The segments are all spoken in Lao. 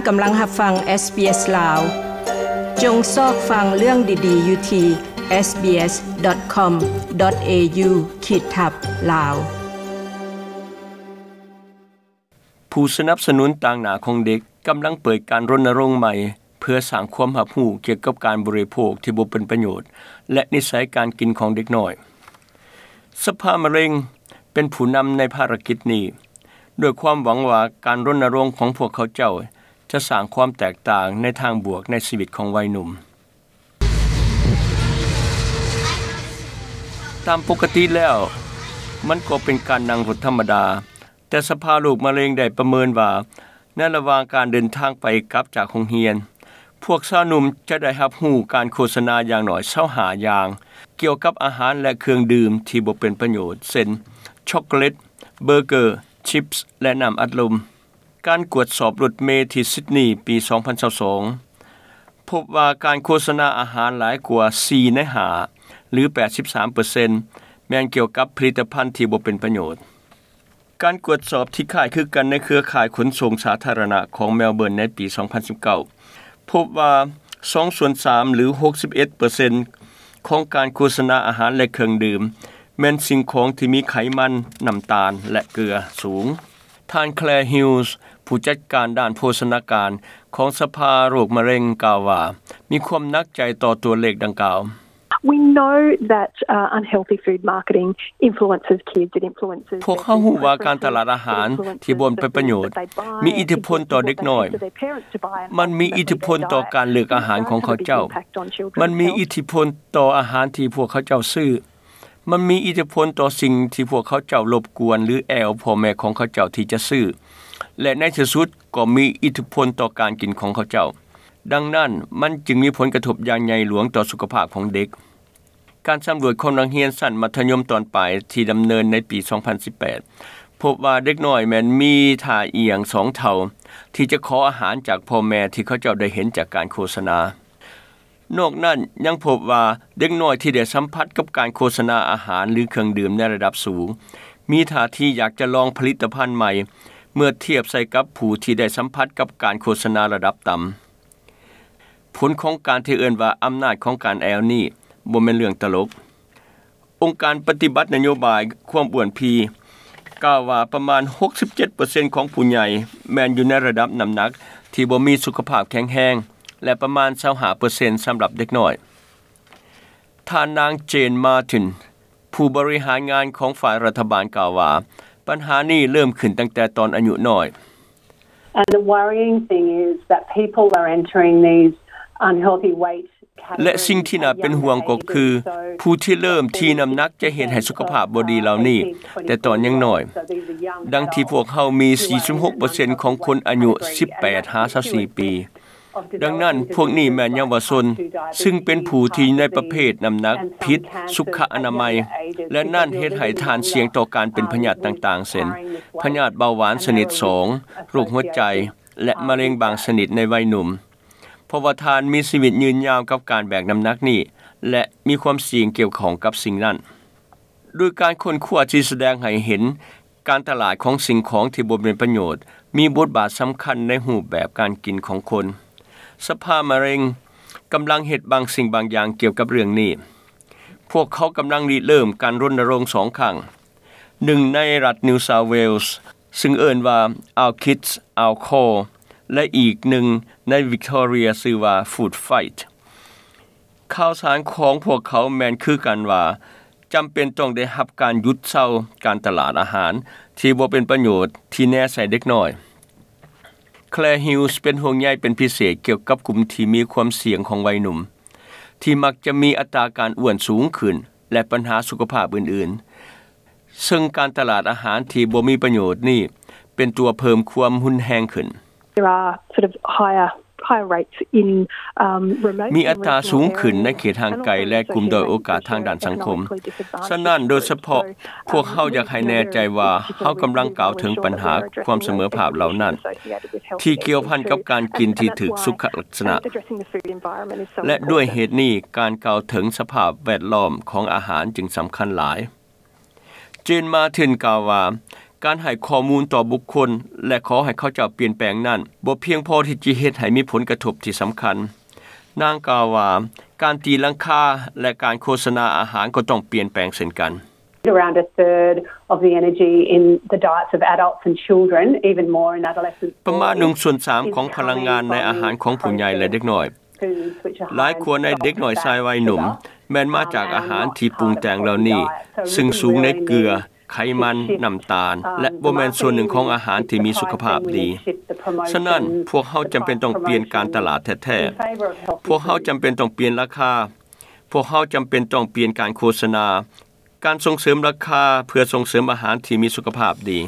ກຳລັງຮັບຟັງ SBS ລາວ. ຈົ່ງຊອກຟັງເລື່ອງດີໆຢູ່ທີ່ SBS.com.au ຂີດທັບ ລາວ. ຜູ້ສະໜັບສະໜູນຕາງໜ້າຂອງເດັກກຳລັງເປີດການລົນນະລົງໃໝ່ ເພື່ອສ້າງຄວາມຮັບຮູ້ກ່ຽວກັບການບໍລິໂພກທີ່ບໍ່ເປັນປະໂຫຍດ ແລະ ນິໄສການກິນຂອງເດັກນ້ອຍ. ສະພາມະເລັງເປັນຜູ້ນຳໃນພາລະກິດນີ້ ດ້ວຍຄວາມຫວັງວ່າການລົນນະລົງຂອງພວກເຂົາເຈົ້າຈະສ້າງຄວາມແຕກຕ່າງໃນທາງບວກໃນຊີວິດຂອງໄວໜຸ່ມ. ຕາມປົກກະຕິແລ້ວ, ມັນກໍເປັນການນັ່ງລົດທຳມະດາ, ແຕ່ສະພາໂລກມະເລັງໄດ້ປະເມີນວ່າ ໃນລະຫວ່າງການເດີນທາງໄປກັບຈາກໂຮງຮຽນ, ພວກຊາວໜຸ່ມຈະໄດ້ຮັບຮູ້ການໂຄສະນາຢ່າງໜ້ອຍຊາວຫ້າຢ່າງ ກ່ຽວກັບອາຫານ ແລະ ເຄື່ອງດື່ມທີ່ບໍ່ເປັນປະໂຫຍດ, ເຊັ່ນ ຊັອກໂກແລັດ, ເບີເກີ, ຊິບ ແລະ ນ້ຳອັດລົມ. ການກວດສອບລົດເມທີ່ຊິດນີປີສອງພັນຊາວສອງ ພົບວ່າການໂຄສະນາອາຫານຫຼາຍກວ່າສີ່ໃນຫ້າ ຫຼື ແປດສິບສາມເປີເຊັນ ແມ່ນກ່ຽວກັບຜະລິດຕະພັນທີ່ບໍ່ເປັນປະໂຫຍດ. ການກວດສອບທີ່ຄ້າຍຄືກັນໃນເຄືອຂ່າຍຂົນສົ່ງສາທາລະນະຂອງແມລເບີນໃນປີສອງພັນສິບເກົ້າ ພົບວ່າສອງສ່ວນສາມ ຫຼື ຫົກສິບເອັດເປີເຊັນ ຂອງການໂຄສະນາອາຫານ ແລະ ເຄື່ອງດື່ມ ແມ່ນສິ່ງຂອງທີ່ມີໄຂມັນ, ນ້ຳຕານ ແລະ ເກືອສູງ. ທ່ານ Claire Hughes ຜູ້ຈັດການດ້ານໂພຊະນາການຂອງສະພາໂລກມະເລັງ ກ່າວວ່າ ມີຄວາມໜັກໃຈຕໍ່ຕົວເລກດັ່ງກ່າວ. We know that, uh, unhealthy food marketing influences kids, it influences ພວກເຮົາຮູ້ວ່າການຕະຫຼາດອາຫານທີ່ບໍ່ເປັນປະໂຫຍດ ມີອິດທິພົນຕໍ່ເດັກນ້ອຍ, ມັນມີອິດທິພົນຕໍ່ການເລືອກອາຫານຂອງເຂົາເຈົ້າ, ມັນມີອິດທິພົນຕໍ່ອາຫານທີ່ພວກເຂົາເຈົ້າຊື້, ມັນມີອິດທິພົນຕໍ່ສິ່ງທີ່ພວກເຂົາເຈົ້າລົບກວນ ຫຼື ແອ່ວພໍ່ແມ່ຂອງເຂົາເຈົ້າທີ່ຈະຊື້ ແລະ ໃນທີ່ສຸດກໍມີອິດທິພົນຕໍ່ການກິນຂອງເຂົາເຈົ້າ. ດັ່ງນັ້ນ, ມັນຈຶ່ງມີຜົນກະທົບຢ່າງໃຫຍ່ຫຼວງຕໍ່ສຸຂະພາບຂອງເດັກ. ການສຳຫຼວດຂອງນັກຮຽນຊັ້ນມັດທະຍົມຕອນປາຍທີ່ດຳເນີນໃນປີສອງພັນສິບແປດ ພົບວ່າເດັກນ້ອຍແມ່ນມີທ່າອ່ຽງສອງເທົ່າ ທີ່ຈະຂໍອາຫານຈາກພໍ່ແມ່ທີ່ເຂົາເຈົ້າໄດ້ເຫັນຈາກການໂຄສະນາ. ນອກນັ້ນຍັງພົບວ່າເດັກນ້ອຍທີ່ໄດ້ສຳຜັດກັບການໂຄສະນາອາຫານ ຫຼື ເຄື່ອງດື່ມໃນລະດັບສູງ ມີທ່າທີຢາກຈະລອງຜະລິດຕະພັນໃໝ່ ເມື່ອທຽບໃສ່ກັບຜູ້ທີ່ໄດ້ສຳຜັດກັບການໂຄສະນາລະດັບຕ່ຳ. ຜົນຂອງການທີ່ເອີ້ນວ່າອຳນາດຂອງການແອ່ວນີ້ບໍ່ແມ່ນເລື່ອງຕະຫຼົກ. ອົງການປະຕິບັດນະໂຍບາຍຄວາມອ້ວນພີກ່າວວ່າປະມານຫົກສິບເຈັດເປີເຊັນຂອງຜູ້ໃຫຍ່ແມ່ນຢູ່ໃນລະດັບນ້ຳໜັກທີ່ບໍ່ມີສຸຂະພາບແຂງແຮງ ແລະ ປະມານຊາວຫ້າເປີເຊັນສຳລັບເດັກນ້ອຍ. ທ່ານນາງ Jane Martin ຜູ້ບໍລິຫານງານຂອງຝ່າຍລັດຖະບານກ່າວວ່າ ບັນຫານີ້ເລີ່ມຂຶ້ນຕັ້ງແຕ່ຕອນອາຍຸນ້ອຍ. And the worrying thing is that people are entering these unhealthy weight categories ແລະ ສິ່ງທີ່ໜ້າເປັນຫ່ວງກໍຄື ຜູ້ທີ່ເລີ່ມທີ່ນ້ຳໜັກຈະເຮັດໃຫ້ສຸຂະພາບບໍ່ດີເຫຼົ່ານີ້ແຕ່ຕອນຍັງນ້ອຍ, ດັ່ງທີ່ພວກເຮົາມີສີ່ສິບຫົກເປີເຊັນຂອງຄົນອາຍຸສິບແປດຫາຊາວສີ່ປີ. ດັ່ງນັ້ນ, ພວກນີ້ແມ່ນເຍົາວະຊົນ, ຊຶ່ງເປັນຜູ້ທີ່ຢູ່ໃນປະເພດນ້ຳໜັກຜິດສຸຂະອະນາໄມ, ແລະ ນັ້ນເຮັດໃຫ້ທ່ານສ່ຽງຕໍ່ການເປັນພະຍາດຕ່າງໆ ເຊັ່ນ ພະຍາດເບົາຫວານຊະນິດສອງ, ໂລກຫົວໃຈ ແລະ ມະເລັງບາງຊະນິດໃນໄວໜຸ່ມ, ເພາະວ່າທ່ານມີຊີວິດຍືນຍາວກັບການແບກນ້ຳໜັກນີ້ ແລະ ມີຄວາມສ່ຽງກ່ຽວຂ້ອງກັບສິ່ງນັ້ນ. ໂດຍການຄົ້ນຄວ້າທີ່ສະແດງໃຫ້ເຫັນ ການຕະຫຼາດຂອງສິ່ງຂອງທີ່ບໍ່ເປັນປະໂຫຍດ ມີບົດບາດສຳຄັນໃນຮູບແບບການກິນຂອງຄົນ. ສະພາມະເລັງກຳລັງເຮັດບາງສິ່ງບາງຢ່າງກ່ຽວກັບເລື່ອງນີ້. ພວກເຂົາກຳລັງລິເລີ່ມການລົນນະລົງສອງຄັ້ງ, ໜຶ່ງໃນລັດ New South Wales ຊຶ່ງເອີ້ນວ່າ Our Kids, Our Call ແລະ ອີກໜຶ່ງໃນ Victoria ຊື່ວ່າ Food Fight. ຂ່າວສານຂອງພວກເຂົາແມ່ນຄືກັນວ່າ ຈຳເປັນຕ້ອງໄດ້ຮັບການຢຸດເຊົາການຕະຫຼາດອາຫານທີ່ບໍ່ເປັນປະໂຫຍດທີ່ແນໃສ່ເດັກນ້ອຍ. Claire Hughes ເປັນຫ່ວງໃຍເປັນພິເສດກ່ຽວກັບກຸ່ມທີ່ມີຄວາມສ່ຽງຂອງໄວໜຸ່ມ ທີ່ມັກຈະມີອັດຕາການອ້ວນສູງຂຶ້ນ ແລະ ບັນຫາສຸຂະພາບອື່ນໆ, ເຊິ່ງການຕະຫຼາດອາຫານທີ່ບໍ່ມີປະໂຫຍດນີ້ເປັນຕົວເພີ່ມຄວາມຮຸນແຮງຂຶ້ນ. There are sort of higher, higher rates in, um, remote and regional areas. ມີອັດຕາສູງຂຶ້ນໃນເຂດຫ່າງໄກ ແລະ ກຸ່ມດ້ອຍໂອກາດທາງດ້ານສັງຄົມ. ສະນັ້ນ, ໂດຍສະເພາະ, ພວກເຮົາຢາກໃຫ້ແນ່ໃຈວ່າເຮົາກຳລັງກ່າວເຖິງບັນຫາຄວາມສະເໝີພາບເຫຼົ່ານັ້ນ ທີ່ກ່ຽວພັນກັບການກິນທີ່ຖືກສຸຂະລັກສະນະ. ແລະ ດ້ວຍເຫດນີ້, ການກ່າວເຖິງສະພາບແວດລ້ອມຂອງອາຫານຈຶ່ງສຳຄັນຫຼາຍ. Jane Martin ກ່າວວ່າ, ການໃຫ້ຂໍ້ມູນຕໍ່ບຸກຄົນ ແລະ ຂໍໃຫ້ເຂົາເຈົ້າປ່ຽນແປງນັ້ນ ບໍ່ພຽງພໍທີ່ຈະເຮັດໃຫ້ມີຜົນກະທົບທີ່ສຳຄັນ. ນາງກ່າວວ່າ ການຕີລາຄາ ແລະ ການໂຄສະນາອາຫານກໍຕ້ອງປ່ຽນແປງເຊັ່ນກັນ. Around a third of the energy in the diets of adults and children, even more in adolescents. ປະມານໜຶ່ງສ່ວນສາມຂອງພະລັງງານໃນອາຫານຂອງຜູ້ໃຫຍ່ ແລະ ເດັກນ້ອຍ ຫຼາຍກວ່າໃນເດັກນ້ອຍຊາຍວັຍໜຸ່ມ ແມ່ນມາຈາກອາຫານທີ່ປຸງແຕ່ງເຫຼົ່ານີ້ ຊຶ່ງສູງໃນເກືອ, ໄຂມັນ, ນ້ຳຕານ ແລະ ບໍ່ແມ່ນສ່ວນໜຶ່ງຂອງອາຫານທີ່ມີສຸຂະພາບດີ. ສະນັ້ນ, ພວກເຮົາຈຳເປັນຕ້ອງປ່ຽນການຕະຫຼາດແທ້ໆ. ພວກເຮົາຈຳເປັນຕ້ອງປ່ຽນລາຄາ. ພວກເຮົາຈຳເປັນຕ້ອງປ່ຽນການໂຄສະນາ, ການສົ່ງເສີມລາຄາເພື່ອສົ່ງເສີມອາຫານທີ່ມີສຸຂະພາບດີ.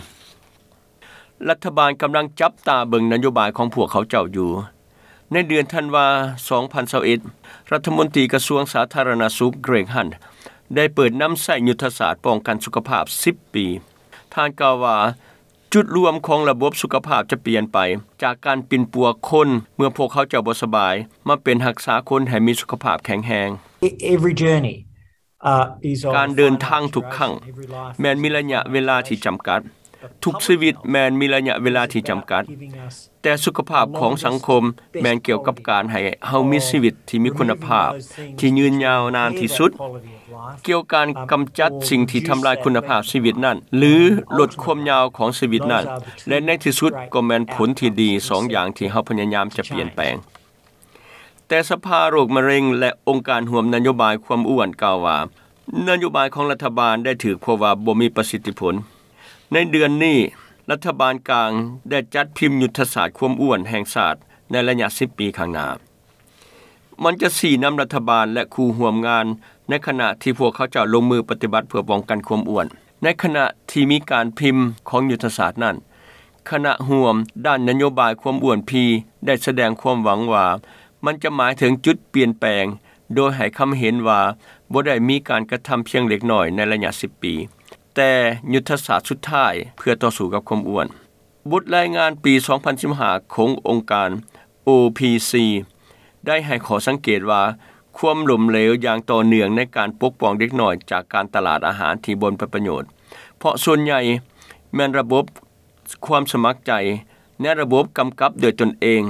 ລັດຖະບານກຳລັງຈັບຕາເບິ່ງນະໂຍບາຍຂອງພວກເຂົາເຈົ້າຢູ່. ໃນເດືອນທັນວາ ສອງພັນຊາວເອັດ ລັດຖະມົນຕີກະຊວງສາທາລະນະສຸກ Greg Hunt ໄດ້ເປີດນຳໃຊ້ຍຸດທະສາດປ້ອງກັນສຸຂະພາບສິບປີ. ທ່ານກ່າວວ່າ ຈຸດລວມຂອງລະບົບສຸຂະພາບຈະປ່ຽນໄປ ຈາກການປິ່ນປົວຄົນເມື່ອພວກເຂົາເຈົ້າບໍ່ສະບາຍ ມາເປັນຮັກສາຄົນໃຫ້ມີສຸຂະພາບແຂງແຮງ. E- every journey ການເດີນທາງທຸກຄັ້ງແມ່ນມີໄລຍະເວລາທີ່ຈຳກັດ. ທຸກຊີວິດແມ່ນມີໄລຍະເວລາທີ່ຈຳກັດ. ແຕ່ສຸຂະພາບຂອງສັງຄົມແມ່ນກ່ຽວກັບການໃຫ້ເຮົາມີຊີວິດທີ່ມີຄຸນນະພາບ, ທີ່ຍືນຍາວນານທີ່ສຸດ. ກ່ຽວການກຳຈັດສິ່ງທີ່ທຳລາຍຄຸນນະພາບຊີວິດນັ້ນ ຫຼື ລົດຄວາມຍາວຂອງຊີວິດນັ້ນ ແລະ ໃນທີ່ສຸດກໍແມ່ນຜົນທີ່ດີສອງຢ່າງທີ່ເຮົາພະຍາຍາມຈະປ່ຽນແປງ. ແຕ່ສະພາໂລກມະເຮັງ ແລະ ອົງການຮ່ວມນະໂຍບາຍຄວາມອ້ວນກ່າວວ່າ ນະໂຍບາຍຂອງລັດຖະບານໄດ້ຖືກພົບວ່າບໍ່ມີປະສິດທິຜົນ. ໃນເດືອນນີ້, ລັດຖະບານກາງໄດ້ຈັດພິມຍຸດທະສາດຄວາມອ້ວນແຫ່ງຊາດໃນໄລຍະສິບປີຂ້າງໜ້າ. ມັນຈະຊີ້ນຳລັດຖະບານ ແລະ ຄູ່ຮ່ວມງານ ໃນຂະນະທີ່ພວກເຂົາເຈົ້າລົງມືປະຕິບັດເພື່ອປ້ອງກັນຄວາມອ້ວນ. ໃນຂະນະທີ່ມີການພິມຂອງຍຸດທະສາດນັ້ນ, ຄະນະຮ່ວມດ້ານນະໂຍບາຍຄວາມອ້ວນພີໄດ້ສະແດງຄວາມຫວັງວ່າ ມັນຈະໝາຍເຖິງຈຸດປ່ຽນແປງ, ໂດຍໃຫ້ຄຳເຫັນວ່າບໍ່ໄດ້ມີການກະທຳພຽງເລັກນ້ອຍໃນໄລຍະສິບປີ, ແຕ່ຍຸດທະສາດສຸດທ້າຍເພື່ອຕໍ່ສູ້ກັບຄວາມອ້ວນ. ບົດລາຍງານປີສອງພັນສິບຫ້າຂອງອົງການ ໂອພີຊີ ໄດ້ໃຫ້ຂໍ້ສັງເກດວ່າ ຄວາມລົ້ມເຫຼວຢ່າງຕໍ່ເນື່ອງໃນການປົກປ້ອງເດັກນ້ອຍຈາກການຕະຫຼາດອາຫານທີ່ບໍ່ເປັນປະໂຫຍດ, ເພາະສ່ວນໃຫຍ່ແມ່ນລະບົບຄວາມສະໝັກໃຈ ໃນລະບົບກຳກັບໂດຍຕົນເອງ,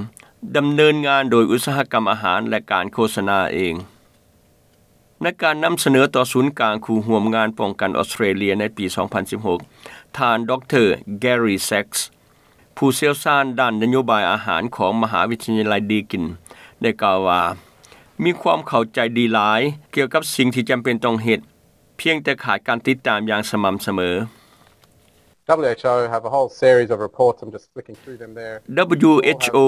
ດຳເນີນງານໂດຍອຸດສາຫະກຳອາຫານ ແລະ ການໂຄສະນາເອງ. ໃນການນຳສະເໜີຕໍ່ສູນກາງຄູ່ຮ່ວມງານປ້ອງກັນອອສເຕຣເລຍໃນປີສອງພັນສິບຫົກ, ທ່ານ ດຣ Gary Sacks ຜູ້ຊ່ຽວຊານດ້ານນະໂຍບາຍອາຫານຂອງມະຫາວິທະຍາໄລດີກິນ ໄດ້ກ່າວວ່າ ມີຄວາມເຂົ້າໃຈດີຫຼາຍກ່ຽວກັບສິ່ງທີ່ຈຳເປັນຕ້ອງເຮັດ, ພຽງແຕ່ຂາດການຕິດຕາມຢ່າງສະໝ່ຳສະເໝີ. WHO have a whole series of reports. I'm just flicking through them there. WHO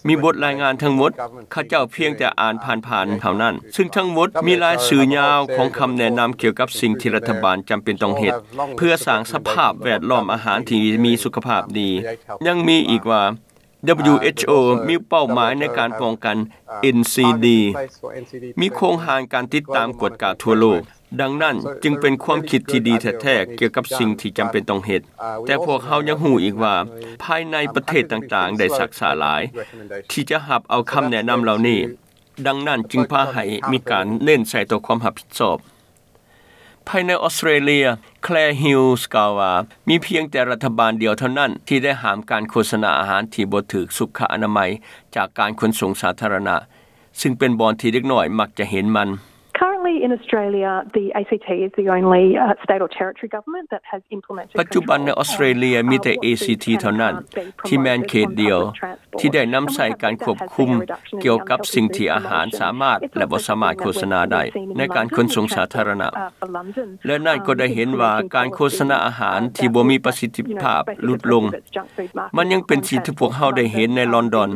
ມີບົດລາຍງານທັງໝົດ, ຂ້າເຈົ້າພຽງແຕ່ອ່ານຜ່ານໆເທົ່ານັ້ນ, ຊຶ່ງທັງໝົດມີລາຍຊື່ຍາວຂອງຄຳແນະນຳກ່ຽວກັບສິ່ງທີ່ລັດຖະບານຈຳເປັນຕ້ອງເຮັດ ເພື່ອສ້າງສະພາບແວດລ້ອມອາຫານທີ່ມີສຸຂະພາບດີ. ຍັງມີອີກວ່າ WHO ມີເປົ້າໝາຍໃນການປ້ອງກັນ ເອັນຊີດີ ມີໂຄງຮ່າງການຕິດຕາມກວດກາທົ່ວໂລກ. ດັ່ງນັ້ນຈຶ່ງເປັນຄວາມຄິດທີ່ດີແທ້ໆກ່ຽວກັບສິ່ງທີ່ຈຳເປັນຕ້ອງເຮັດ, ແຕ່ພວກເຮົາຍັງຮູ້ອີກວ່າ ພາຍໃນປະເທດຕ່າງໆໄດ້ຊັກຊ້າຫຼາຍທີ່ຈະຮັບເອົາຄຳແນະນຳເຫຼົ່ານີ້. ດັ່ງນັ້ນຈຶ່ງພາໃຫ້ມີການເນັ້ນໃສ່ຕໍ່ຄວາມຮັບຜິດຊອບ. ພາຍໃນອອສເຕຣເລຍ, Claire Hughes ກ່າວວ່າ ມີພຽງແຕ່ລັດຖະບານດຽວເທົ່ານັ້ນທີ່ໄດ້ຫ້າມການໂຄສະນາອາຫານທີ່ບໍ່ຖືກສຸຂະອະນາໄມຈາກການຂົນສົ່ງສາທາລະນະ, ຊຶ່ງເປັນບ່ອນທີ່ເດັກນ້ອຍມັກຈະເຫັນມັນ. Currently in Australia, the ACT is the only, uh, state or territory government that has implemented ປັດຈຸບັນໃນອອສເຕຣເລຍມີແຕ່ ເອຊີທີ ເທົ່ານັ້ນ ທີ່ແມ່ນເຂດດຽວທີ່ໄດ້ນຳໃຊ້ການຄວບຄຸມກ່ຽວກັບສິ່ງທີ່ອາຫານສາມາດ ແລະ ບໍ່ສາມາດໂຄສະນາໄດ້ໃນການຂົນສົ່ງສາທາລະນະ, ແລະ ນັ້ນກໍໄດ້ເຫັນວ່າການໂຄສະນາອາຫານທີ່ບໍ່ມີປະສິດທິພາບຫຼຸດລົງ. ມັນຍັງເປັນສິ່ງທີ່ພວກເຮົາໄດ້ເຫັນໃນລອນດອນ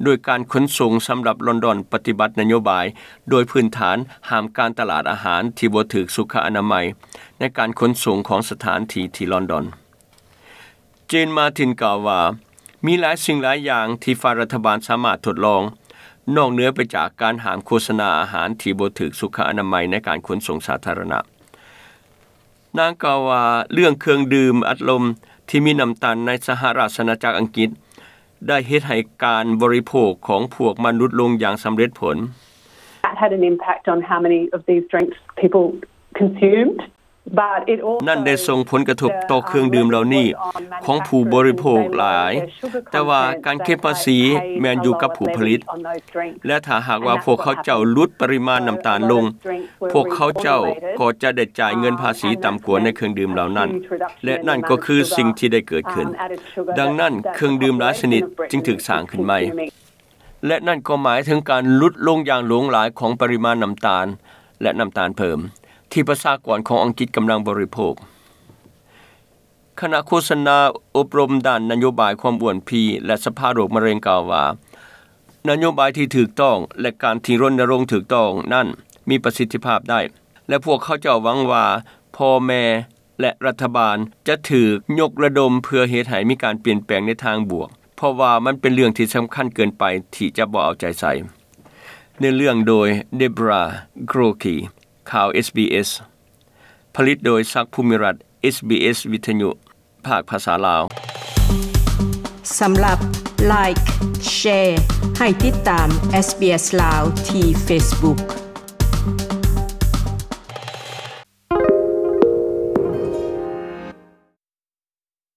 ໂດຍການຂົນສົ່ງສຳລັບລອນດອນປະຕິບັດນະໂຍບາຍ ໂດຍພື້ນຖານຫ້າມການຕະຫຼາດອາຫານທີ່ບໍ່ຖືກສຸຂະອະນາໄມໃນການຂົນສົ່ງຂອງສະຖານທີ່ທີ່ລອນດອນ. Jane Martin ກ່າວວ່າ ມີຫຼາຍສິ່ງຫຼາຍຢ່າງທີ່ຝ່າຍລັດຖະບານສາມາດທົດລອງ ນອກເໜືອໄປຈາກການຫ້າມໂຄສະນາອາຫານທີ່ບໍ່ຖືກສຸຂະອະນາໄມໃນການຂົນສົ່ງສາທາລະນະ. ນາງກ່າວວ່າ ເລື່ອງເຄື່ອງດື່ມອັດລົມທີ່ມີນ້ຳຕານໃນສະຫະລາຊະອານາຈັກອັງກິດ ໄດ້ເຮັດໃຫ້ການບໍລິໂພກຂອງພວກມັນຫຼຸດລົງຢ່າງສຳເລັດຜົນ. That had an impact on how many of these drinks people consumed. นั่นได้ส่งผลกระทบต่อเครื่องดื่มเหล่านี้ของผู้บริโภคหลาย แต่ว่าการเก็บภาษีแม่นอยู่กับผู้ผลิต และถ้าหากว่าพวกเขาเจ้าลดปริมาณน้ำตาลลง พวกเขาเจ้าก็จะได้จ่ายเงินภาษีต่ำกว่าในเครื่องดื่มเหล่านั้น และนั่นก็คือสิ่งที่ได้เกิดขึ้น ดังนั้นเครื่องดื่มหลายชนิดจึงถูกสร้างขึ้นใหม่ และนั่นก็หมายถึงการลดลงอย่างหลวงหลายของปริมาณน้ำตาล และน้ำตาลเพิ่ม ที่ประชากรของอังกฤษกำลังบริโภค คณะโฆษณาอบรมด้านนโยบายความอ้วนพี และสภาโรคมะเร็งกล่าวว่า นโยบายที่ถูกต้อง และการที่รณรงค์ถูกต้องนั้นมีประสิทธิภาพได้ และพวกเขาเจ้าหวังว่าพ่อแม่ และรัฐบาลจะถูกยกระดมเพื่อเฮ็ดให้มีการเปลี่ยนแปลงในทางบวก เพราะว่ามันเป็นเรื่องที่สำคัญเกินไปที่จะบ่เอาใจใส่ เนื้อเรื่องโดย Deborah Groarke ข่าว SBS ผลิตโดยศักดิ์ภูมิรัตน์ SBS วิทยุ ภาคภาษาลาว สำหรับ Like Share ให้ติดตาม SBS ลาวที่ Facebook.